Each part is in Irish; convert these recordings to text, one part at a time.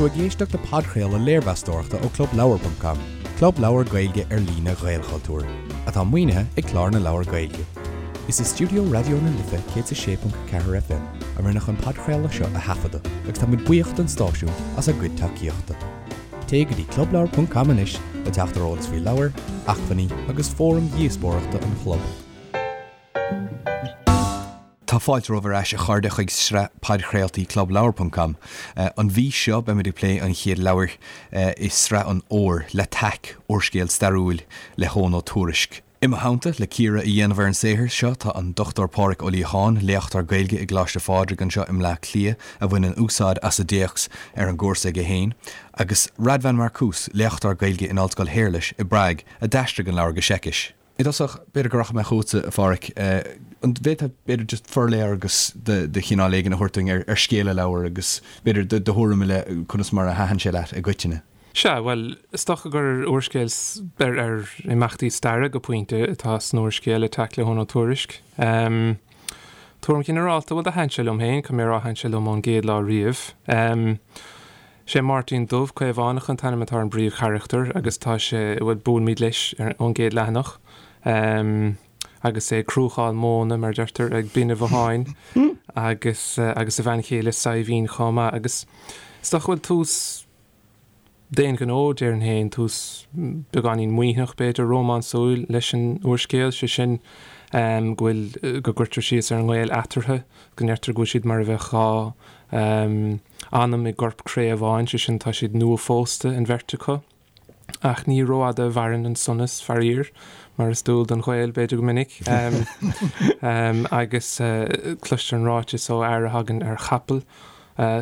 tú ag éisteacht le podchraoladh léirmheastóireachta ó ClubLeabhar.com, club leabhar Gaeilge ar líne Ghaelchultúir, atá maoinithe ag Clár na Leabhar Gaeilge. Is i stiúideo Raidió na Life 106.4 FM a rinneadh an podchraoladh seo a thaifeadadh agus tá muid buíoch don stáisiún as a gcuid tacaíochta. Téigh go dtí clubleabhar.com anois le teacht ar eolas faoi leabhair, acmhainní agus fóraim dhíospóireachta an chlub. Tá fáilte romhaibh ar ais, a chairde, chuig sraith podchraoltaí ClubLeabhar.com. An mhí seo, beimid ag plé an chéad leabhair i sraith an fhómhair, L'Attaque, úrscéal stairiúil le hEoghan Ó Tuairisc. I mo theannta, le cíoradh a dhéanamh ar an saothar seo, tá an Dr Pádraig Ó Liacháin, léachtóir Gaeilge i gColáiste Phádraig anseo i mBleá Cliath, a bhaineann úsáid as an dtéacs ar an gcúrsa aige féin, agus Radvan Markus, léachtóir Gaeilge in Ollscoil Shéarlais i bPrág, a d'aistrigh an leabhar go Seicis. I dtosach, b'fhéidir go rachaidh mé chugatsa, a Phádraig. An bhféadfá, b'fhéidir, just forléargas de chineál éigin a thabhairt dúinn ar scéal an leabhair agus, b'fhéidir, do thuairim i leith conas mar a thaitin sé leat i gcoitinne? Sea, bhuel, is dócha gur úrscéal ar ar imeachtaí staire go pointe atá san úrscéal Attack le hEoghan Ó Tuairisc. Tuairim ghinearálta, bhuel, do thaitin sé liom féin, caithfidh mé a rá, thaitin sé liom ón gcéad lá riamh. Sé Máirtín Dubh, Caomhánach an t-ainm atá ar an bpríomhcharachtar agus tá sé, bhuel, buailimid leis ón gcéad leathanach. Agus é ag cruacháil móna, mar a deirtear, ag Binn a' Bhotháin agus agus a bhean chéile Saidhbhín chomh maith. Agus is dócha go bhfuil tús D'aon ghnó, déarfainn féin, tús beagáinín maoithneach, b'fhéidir, rómánsúil leis an úrscéal, sé sin go bhfuil, go gcuirtear síos ar an ngaol eatarthu, go ndeirtear go bhfuil siad mar a bheadh dhá anam i gcorp cré amháin, sé sin, tá siad nuaphósta, an bheirt acu. Ach ní rófhada a mhaireann an sonas, faraor, mar is dual don ghaol, b'fhéidir, go minic. Agus cloistear an ráiteas ó fhear a thagann ar chapall,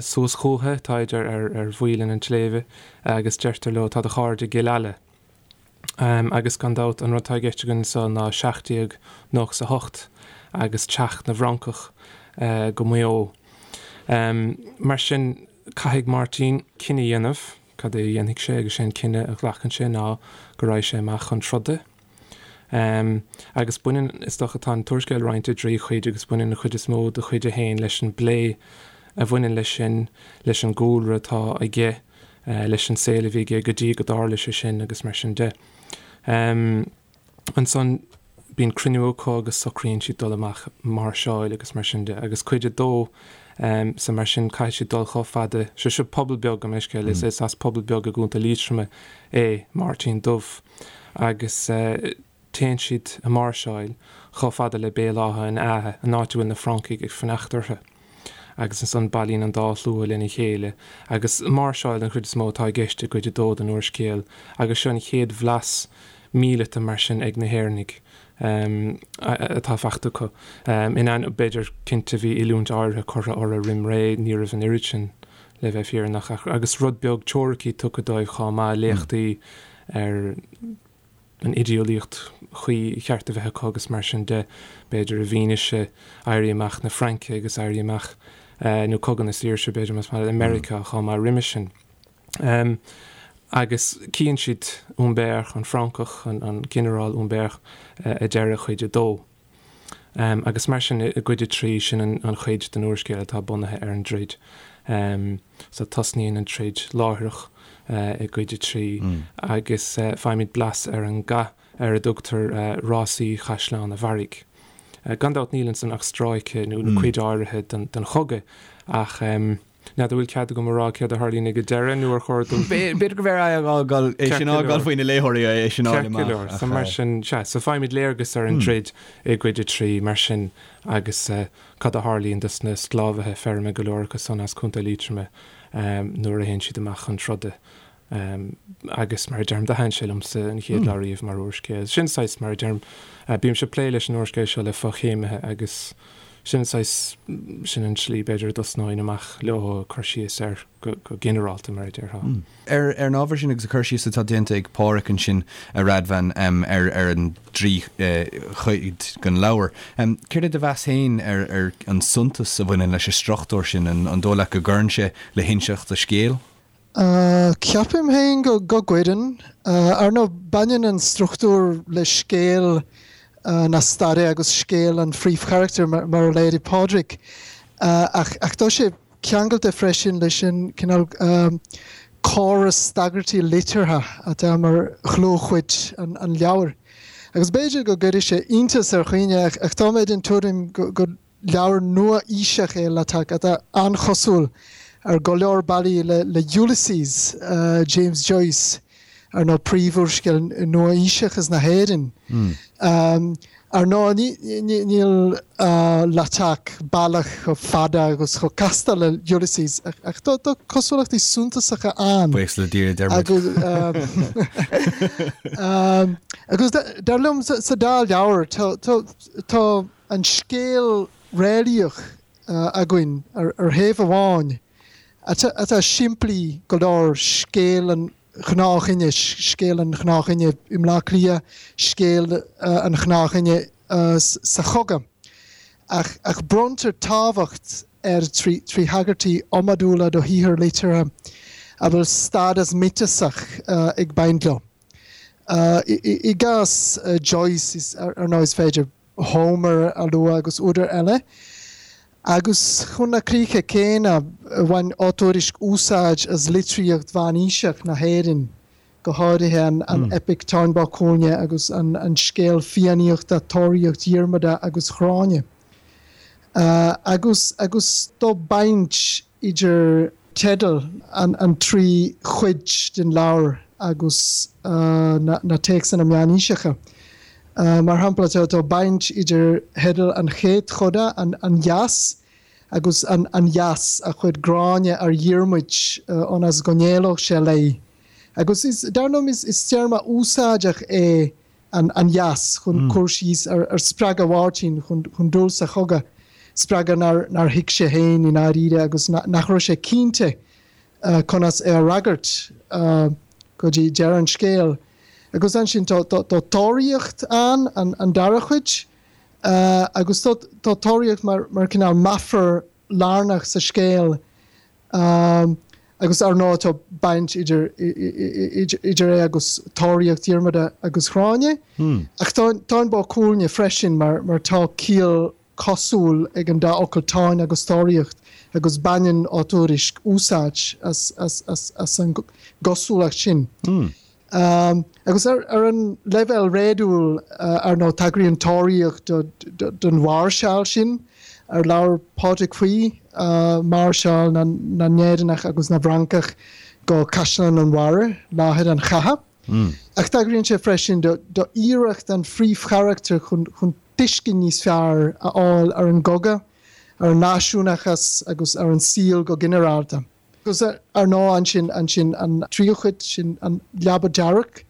Suas chúthu, táid ar ar mhaoilinn an tsléibhe agus deirtear leo, tá do chairde i gCill Ala. Agus gan dabht, an rud atá i gceist againn anso ná 1798 agus teacht na bhFrancach go Maigh Eo. Mar sin, caithfidh Máirtín cinneadh a dhéanamh, cad é a dhéanfaidh sé agus sé an cinneadh a ghlacann sé ná go raghaidh sé amach chun troda. Agus baineann, is dócha, tá an t-úrscéal roinnte i dtrí chuid agus baineann an chuid is mó de chuid a haon leis an bplé a bhaineann leis sin, leis an gcúlra atá aige, leis an saol a bhí aige go dtí go dtarla sé sin agus mar sin de. Ansan bíonn cruinniú acu agus socraíonn siad dul amach máirseáil agus mar sin de. Agus cuid a dó, so mar sin caithfidh siad dul chomh fada, sé seo pobal beag, gabh mo leithscéal, is as pobal beag i gContae Liatroma é Máirtín Dubh. agus téann siad ag máirseáil chomh fada le Béal Átha an Fheadha, an áit a bhfuil na Francaigh ag fanacht orthu. Agus ansan bailíonn an dá shlua lena chéile, agus máirseáil den chuid is mó atá i gceist i gcuid a dó den úrscéal, agus seo an chéad bhlas míleata mar sin ag na hÉireannaigh atá faighte acu. In ainneoin, b'fhéidir, cinnte bhí oiliúint áirithe curtha orthu roim ré, ní raibh an oiread sin, le bheith fírinneach, ach agus rud beag teoiricí tugtha dóibh chomh maith, léachtaí ar an idéolaíocht chuí cheart a bheith acu agus mar sin de, b'fhéidir i bhfianaise Éirí Amach na Fraince agus Éirí Amach, nó Cogadh na Saoirse, b'fhéidir, más maith leat, i Meiriceá chomh maith roimhe sin. Agus cíonn siad Humbert, an Francach, an Ginearál Humbert, ag deireadh chuid a dó. Agus mar sin, i gcuid a 3, sin an chuid den úrscéal atá bunaithe ar an dtroid. So tosnaíonn an troid láithreach i gcuid a 3 agus faighimid blas ar an gcath ar a dtugtar Rásaí Chaisleán a' Bharraigh. Gan dabht níl ansan ach stráice nó cuid áirithe den chogadh ach, N'fheadar an bhfuil cead agam a rá céard a tharlaíonn ag an deireadh nó ar chóir dom. B'fhéidir go mb'fhearr é a fhágáil, é sin a fhágáil faoi na léitheoirí é sin a fháil amach. Ceart go leor. So mar sin, sea, so faighimid léargas ar an dtroid i gcuid a 3 mar sin agus cad a tharlaíonn dos na sclábhaithe feirme go leor acu san as Contae Liatroma nuair a théann siad amach chun troda. Agus mar a deirim, do thaitin sé liomsa an chéad lá riamh mar úrscéal. Sin saghas, mar a deirim, bímse ag plé leis an úrscéal seo le fochéimithe agus sin saghas, sin an tslí b'fhéidir a dtosnóinn amach leo ag cur síos air go ginearálta, mar a déarfá. Ar an ábhar sin agus an cur síos atá déanta ag Pádhraic ansin, a Radvan, ar ar an dtrí chuid den leabhar, céard é do mheas féin ar an suntas a bhaineann leis an struchtúr sin? An dóigh leat go gcuireann sé le hinseacht an scéil? Ceapaim féin go gcuireann. Ar ndóigh, baineann an struchtúr le scéal na staire agus scéal an phríomhcharachtair, mar a léirigh Pádraig, ach tá sé. ceangailte freisin leis an cineál córas tagairtí liteartha atá mar dhlúthchuid an leabhair. Agus b'fhéidir go gcuirfidh sé iontas ar dhaoine ach tá mé den tuairim gur leabhar nua-aoiseach é L'Attaque atá an-chosúil ar go leor bealaí le Ulysses James Joyce, ar ndóigh príomhúrscéal nua-aoiseachas na hÉireann. Ar ndóigh, níl L'Attaque baileach chomh fada agus chomh casta le Ulysses, ach tá cosúlachtaí suntasacha ann. Buíochas le Dia, a deir muid. Agus dar liom, sa dá leabhar, tá an scéal réalaíoch againn ar thaobh amháin, atá simplí go leor, scéal an ghnáthdhuine, scéal an ghnáthdhuine i mBleá Cliath, scéal an ghnáthdhuine sa chogadh. Ach ach bronntar tábhacht air trí thagairtí iomadúla do shaothair liteartha a bhfuil stádas miotasach ag baint leo. I gcás Joyce, ar ndóigh, is féidir Homer a lua agus údair eile. Agus chun na críche céanna, bhain Ó Tuairisg úsáid as litríocht mheánaoiseach na hÉireann, go háirithe an eipic Táin Bó Cúailnge agus an scéal Fiannaíochta Tóraíocht Dhiarmada agus Ghráinne. Agus agus tá baint idir teideal an trí chuid den leabhar agus na téacsanna meánaoiseacha. Mar shampla, tá baint idir theideal an chéad choda, An Gheas, agus an gheas a chuir Gráinne ar Dhiarmuid ionas go n-éalódh sé léi. Agus dar liom, is téarma úsáideach é an gheas chun cur síos ar spreagadh Mháirtín chun dul sa chogadh, spreagadh nár thuig sé féin i ndáiríre agus nach raibh sé cinnte conas é a fhreagairt go dtí deireadh an scéil. Agus ansin tá tóraíocht ann, an dara cuid, agus tá tóraíocht mar cineál meafar lárnach sa scéal agus ar ndóigh tá baint idir idir é agus tóraíocht Dhiarmada agus Ghráinne. Ach Táin Bó Cúailnge freisin mar mar tá ciall cosúil ag an dá fhocal táin agus tóraíocht agus baineann Ó Tuairisg úsáid as as as as an gcosúlacht sin. Agus ar an leibhéal réadúil, ar ndóigh, tagraíonn tóraíocht don mháirseáil sin ar labhair Pádraig faoi, máirseáil na nÉireannach agus na bhFrancach go Caisleán an Bharraigh, láthair an chatha. Ach tagraíonn sé freisin d'iarracht an phríomhcharachtair chun tuiscint níos fearr a fháil ar an gcogadh, ar an náisiúnachas agus ar an saol go ginearálta. Agus ar ndóigh ansin, ansin an tríú cuid, sin an leaba dearg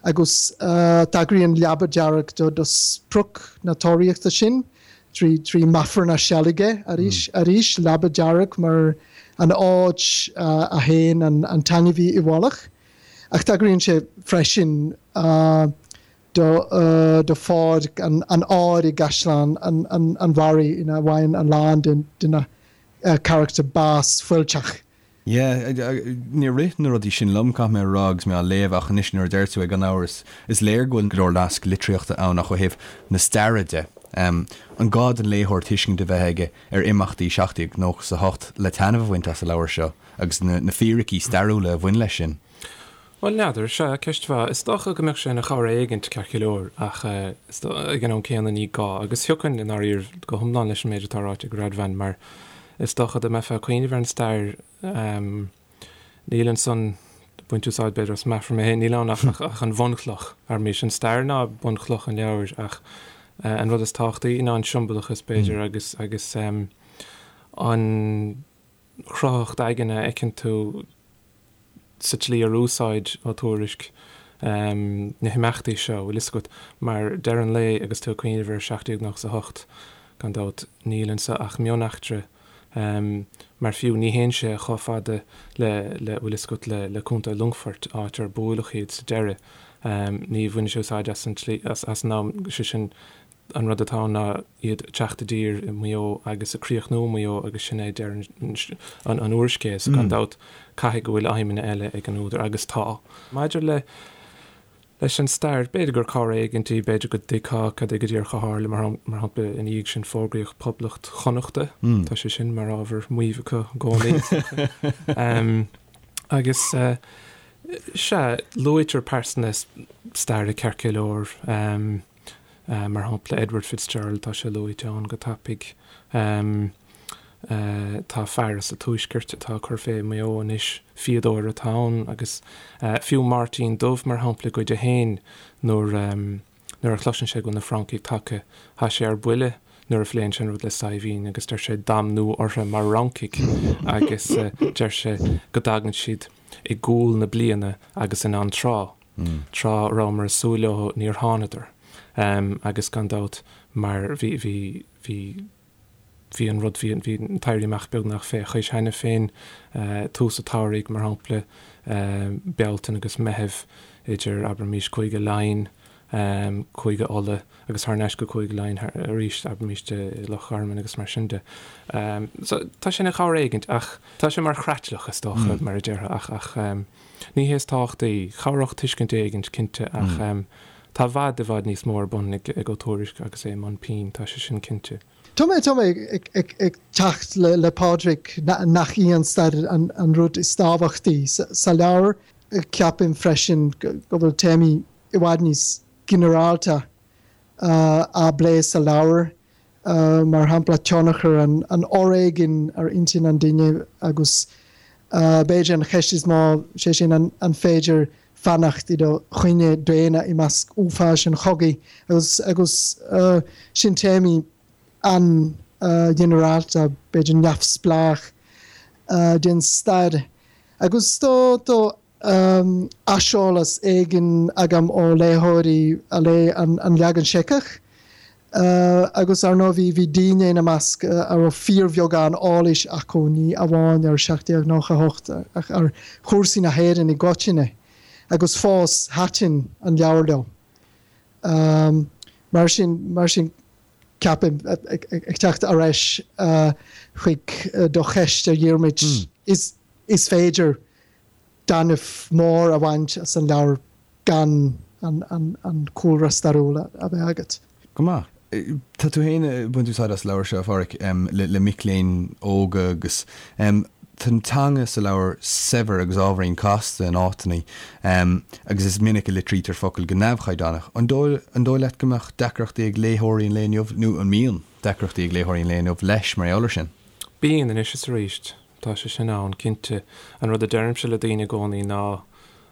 agus tagraíonn leaba dearg do do sprioc na tóraíochta sin trí trí meafar na seilge arís arís, leaba dearg mar an áit a théann an an t-ainmhí i bhfolach. Ach tagraíonn sé freisin do do pháirc an an áir i gCaisleán an an an Bharraigh ina bhfaigheann a lán de de na carachtair bás fuilteach. Yeah, níor rith na rudaí sin liom, caithfidh mé a rá, agus mé á léamh, ach anois nuair a deir tú é, gan amhras, is léir go bhfuil go leor naisc litríochta ann ach ó thaobh na staire de, an gá don léitheoir tuiscint a bheith aige ar imeachtaí 1798 le taitneamh a bhaint as an leabhar seo agus na fíricí stairiúla a bhain leis sin? Bhuel, n'fheadar. Sea, ceist mhaith. Is dócha go mbeadh sé ina chabhair éigint, ceart go leor, ach ag an am céanna ní gá. Agus thiocfainn, i ndáiríre, go hiomlán leis an méid atá ráite ag Radvan, mar is dócha dá mbeifeá ag cuimhneamh ar an stair, níl ansan, baint úsáid b'fhéidir as meafar mé féin, níl ann ach an bhunchloch. Arís, an stair ná bunchloch an leabhair, ach an rud is tábhachtaí ná an siombalachas, b'fhéidir, agus agus an chruthaitheacht aigne a fheiceann tú sa tslí ar úsáid Ó Tuairisg na himeachtaí seo, bhfuil fhios agat, mar deireadh an lae agus tú ag cuimhneamh ar 1798, gan dabht, níl anso ach mioneachtra, mar fiú ní théann sé chomh fada le, le, bhfuil fhios agat, le, le Contae Longfoirt, áit ar buaileadh iad sa deireadh. Ní bhaineann sé úsáid as an tslí, as, as an am, sé sin, An rud atá ann ná iad ag teacht i dtír i Maigh Eo agus ag críochnú i Maigh Eo agus sin é deireadh an úrscéil. So gan dabht caithfidh go bhfuil aidhmeanna eile ag an údar agus tá. Maidir le. Leis an stair, b'fhéidir gur cabhair éigint í, b'fhéidir go dtuigfeá cad é go díreach a tharla, mar shampla, ina dhiaidh sin fógraíodh Poblacht Chonnachta, tá sé sin mar ábhar maímh acu i gcónaí, is dócha. Agus, sea, luaitear pearsana staire ceart go leor, mar shampla Edward Fitzgerald, tá sé luaite ann go tapaidh. Tá fear as an Tuaisceart atá ag cur fé i Maigh Eo anois, fíodóir atá ann, agus fiú Máirtín Dubh, mar shampla, i gcuid a haon, nuair nuair a chloiseann sé go bhfuil na Francaigh tagtha, tá sé ar buile nuair a phléann sé an rud le Saidhbhín agus deir sé damnú orthu mar Fhrancaigh agus deir sé go dtagann siad i gcúl na bliana agus in antráth, tráth a rabhamar ag súil leo níor thánadar. Agus gan dabht mar bhí bhí bhí Bhí an rud, bhí an t-éirí amach beagnach fé chois cheana féin, tús an tsamhraidh, mar shampla, Bealtaine agus Meitheamh, idir, abraimis, Cúige Laighean, Cúige Uladh agus thar n-ais go Cúige Laighean arís, abraimis, i Loch Garman agus mar sin de. So, tá sé ina chabhair éigint ach tá sé mar chreatlach, is dócha, mar a déarfá, ach, ach ní hé is tábhachtaí. Chabhródh tuiscint éigint, cinnte, ach Tá i bhfad, i bhfad níos mó ar bun ag Ó Tuairisg agus é i mbun pinn, tá sé sin cinnte. Tá mé, tá mé ag teacht le Pádraig nach í an stair an rud is tábhachtaí sa leabhar. Ceapaim freisin go bhfuil téamaí i bhfad níos ginearálta á bplé sa leabhar mar shampla tionchar an fhoréigin ar intinn an duine agus b'fhéidir an cheist is mó, sé sin an féidir fanacht i do dhuine daonna i measc uafáis an chogaidh agus agus sin téamaí an-ghinearálta, b'fhéidir neamhspleách den stair. Agus do do aiseolas éigin agam ó léitheoirí a léigh an leagan Seiceach agus ar ndóigh bhí daoine ina measc a raibh fíorbheagán eolais acu, ní amháin ar 1798 ach ar chúrsaí na hÉireann i gcoitinne agus fós thaitin an leabhar leo. Mar sin, mar sin ceapaim, ag teacht ar ais chuig do cheist a Dhiarmuid, is féidir taitneamh mór a bhaint as an leabhar gan an cúlra stairiúil a bheith agat. Go maith. Tá tú féin ag baint úsáid as an leabhar seo, a Pháraic, le mic léinn óga agus tá an teanga sa leabhar saibhir agus ábhairín casta in áiteanna agus is minic a litrítear focail go neamhchaighdeánach. An dóigh leat go mbeadh deacrachtaí ag léitheoirí an lae inniu, nó an mbíonn deacrachtaí ag léitheoirí an lae inniu leis mar gheall air sin? Bíonn, anois is arís. Tá sé sin ann, cinnte. An rud a deirimse le daoine i gcónaí ná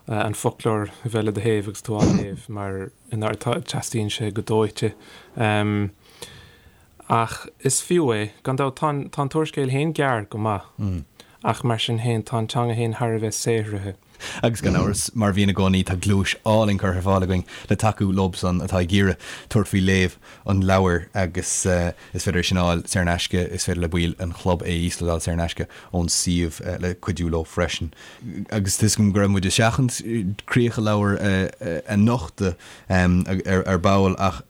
an foclóir a bheith le do thaobh agus tú á léamh mar teastaíonn sé go dóite. Ach is fiú é. Gan dabht, tá an tá an t-úrscéal féin gearr go maith ach mar sin féin tá an teanga féin thar a bheith saothraithe. Agus gan amhras, mar a bhíonn i gcónaí, tá gluais álainn curtha ar fáil againn le tacú leobsan atá ag iarraidh tabhairt faoi léamh an leabhair agus is féidir é sin a fháil saor in aisce, is féidir le baill an chlub é a íoslódáil saor in aisce ón suíomh le cuidiú leo freisin. Agus tá 'fhios agam go raibh muid ag seachaint críoch an leabhair a nochtadh ar ball ach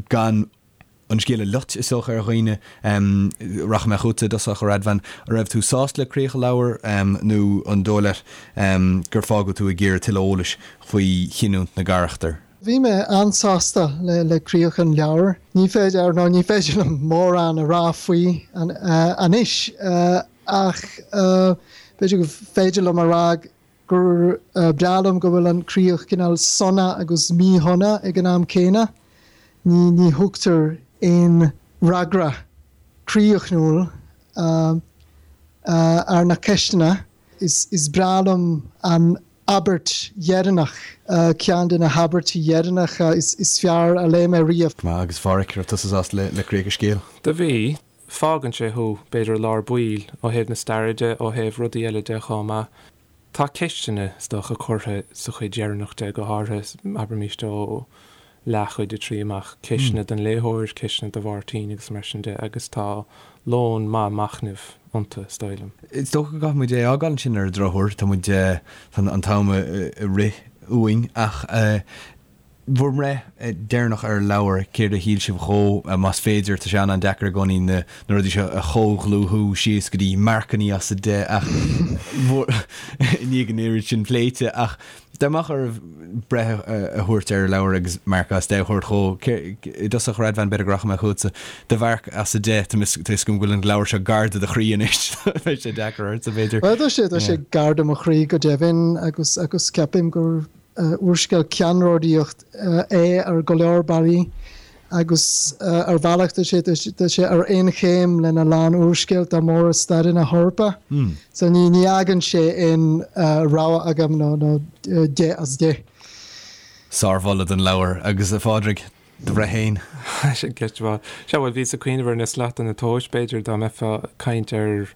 gan an scéal a loit, is dócha, ar dhaoine. Rachaidh mé chugatsa i dtosach, a Radvan. An raibh tú sásta le críoch an leabhair nó an dóigh leat gur fágadh tú ag iarraidh tuilleadh eolais faoi chinniúint na gcarachtar? Bhí mé an-sásta le críoch an leabhair. Ní féidir, ar ndóigh, ní féidir liom mórán a rá faoi anois ach b'fhéidir gur féidir liom a rá gur breá liom go bhfuil an críoch cineál sona agus míshona ag an am céanna. Ní ní thugtar aon fhreagra críochnúil ar na ceisteanna. Is is breá liom an abairt dheireanach, ceann de na habairtí dheireanacha is is fearr a léigh mé riamh. Go maith, agus a Pháraic, raibh tusa sásta le le críoch an scéil? Do bhí. Fágann sé thú, b'fhéidir, i lár baill, ó thaobh na staire de, ó thaobh rudaí eile de chomh maith. Tá ceisteanna, is dócha, curtha sa chuid dheireanach de, go háirithe, abraimis, ó leathchuid a 3 amach, ceisteanna don léitheoir, ceisteanna do Mháirtín agus mar sin de, agus tá lón maith machnaimh iontu, is dóigh liom. Is dócha go gcaithfidh muid é a fhágáil ansin ar an drochuair, tá muid, tá an t-am ag rith uainn ach. Bhur mbreith deireanach ar an leabhar, céard a shíl sibh dhó, más féidir, tá sé an-an-deacair i gcónaí na rudaí seo a chomhdhlúthú síos go dtí marcannaí as 10 ach i ndiaidh an oiread sin pléite ach dá mbeadh oraibh breith a thabhairt ar an leabhar agus marc as 10 a thabhairt dhó, i dtosach Radvan b'fhéidir go rachaidh mé chugatsa, do mharc as 10, tá a fhios agam go bhfuil an leabhar seo gar do do chroí anois, beidh sé deacair ortsa b'fhéidir. Bhuel tá sé, tá sé gar do mo chroí go deimhin agus agus ceapaim gur úrscéal ceannródaíoch é ar go leor bealaí agus ar bhealach tá sé tá sé ar aon chéim lena lán úrscéalta móra staire na hEorpa. So ní ní fhágann sé aon rogha agam ná ná 10 as 10. Sármholadh don leabhar. Agus a Phádraig, do bhreith féin? Sin ceist mhaith. Sea, bhuel, bhíos ag cuimhneamh ar na slata na tomhais, b'fhéidir, dá mbeifeá ag caint ar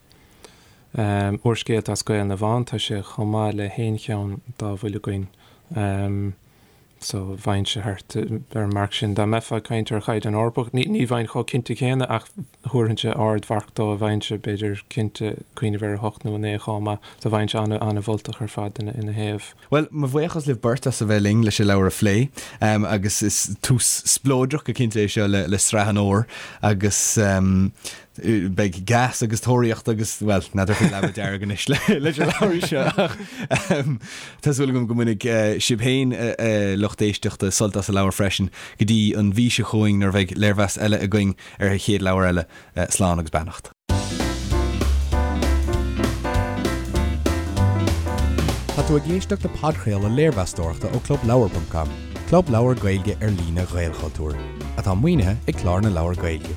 úrscéalta as Gaeil na bhFiann, tá sé chomh maith le haon cheann dá bhfuil againn. So, bheinnse thart ar an marc sin. Dá mbeifeá ag caint ar chaighdeán Eorpach, ní ní bheinn chomh cinnte céanna ach thabharfainnse ardmharc dó, bheinnse, b'fhéidir, cinnte, cuimhneamh ar 8 nó 9 chomh maith. So bheinnse an-mholtach ar fad ina ina thaobh. Bhuel, mo bhuíochas libh beirt as a bheith linn leis an leabhar a phlé agus is tús spleodrach go cinnte é seo le sraith an fhómhair agus beidh gas agus tóraíocht agus, bhuel, n'fheadar faoi leaba dearg anois leis an leabhar seo ach tá súil agam go mbainfidh sibh féin, a lucht éisteachta, sult as an leabhar freisin go dtí an mhí seo chugainn nuair a bheidh léirmheas eile againn ar an chéad leabhar eile. Slán agus beannacht. Tá tú ag éisteacht le podchraoladh léirmheastóireachta ó ClubLeabhar.com, club leabhar Gaeilge ar líne Ghaelchultúir, atá maoinithe ag Clár na Leabhar Gaeilge.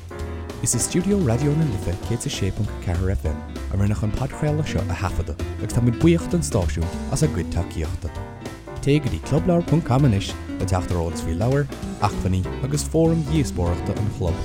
Is i stiúideo Raidió na Life 106.4 FM a rinneadh an podchraoladh seo a thaifeadadh agus tá muid buíoch don stáisiún as a gcuid tacaíochta. Téigh go dtí clubleabhar.com anois le teacht ar eolas faoi leabhair, acmhainní agus fóraim dhíospóireachta an chlub.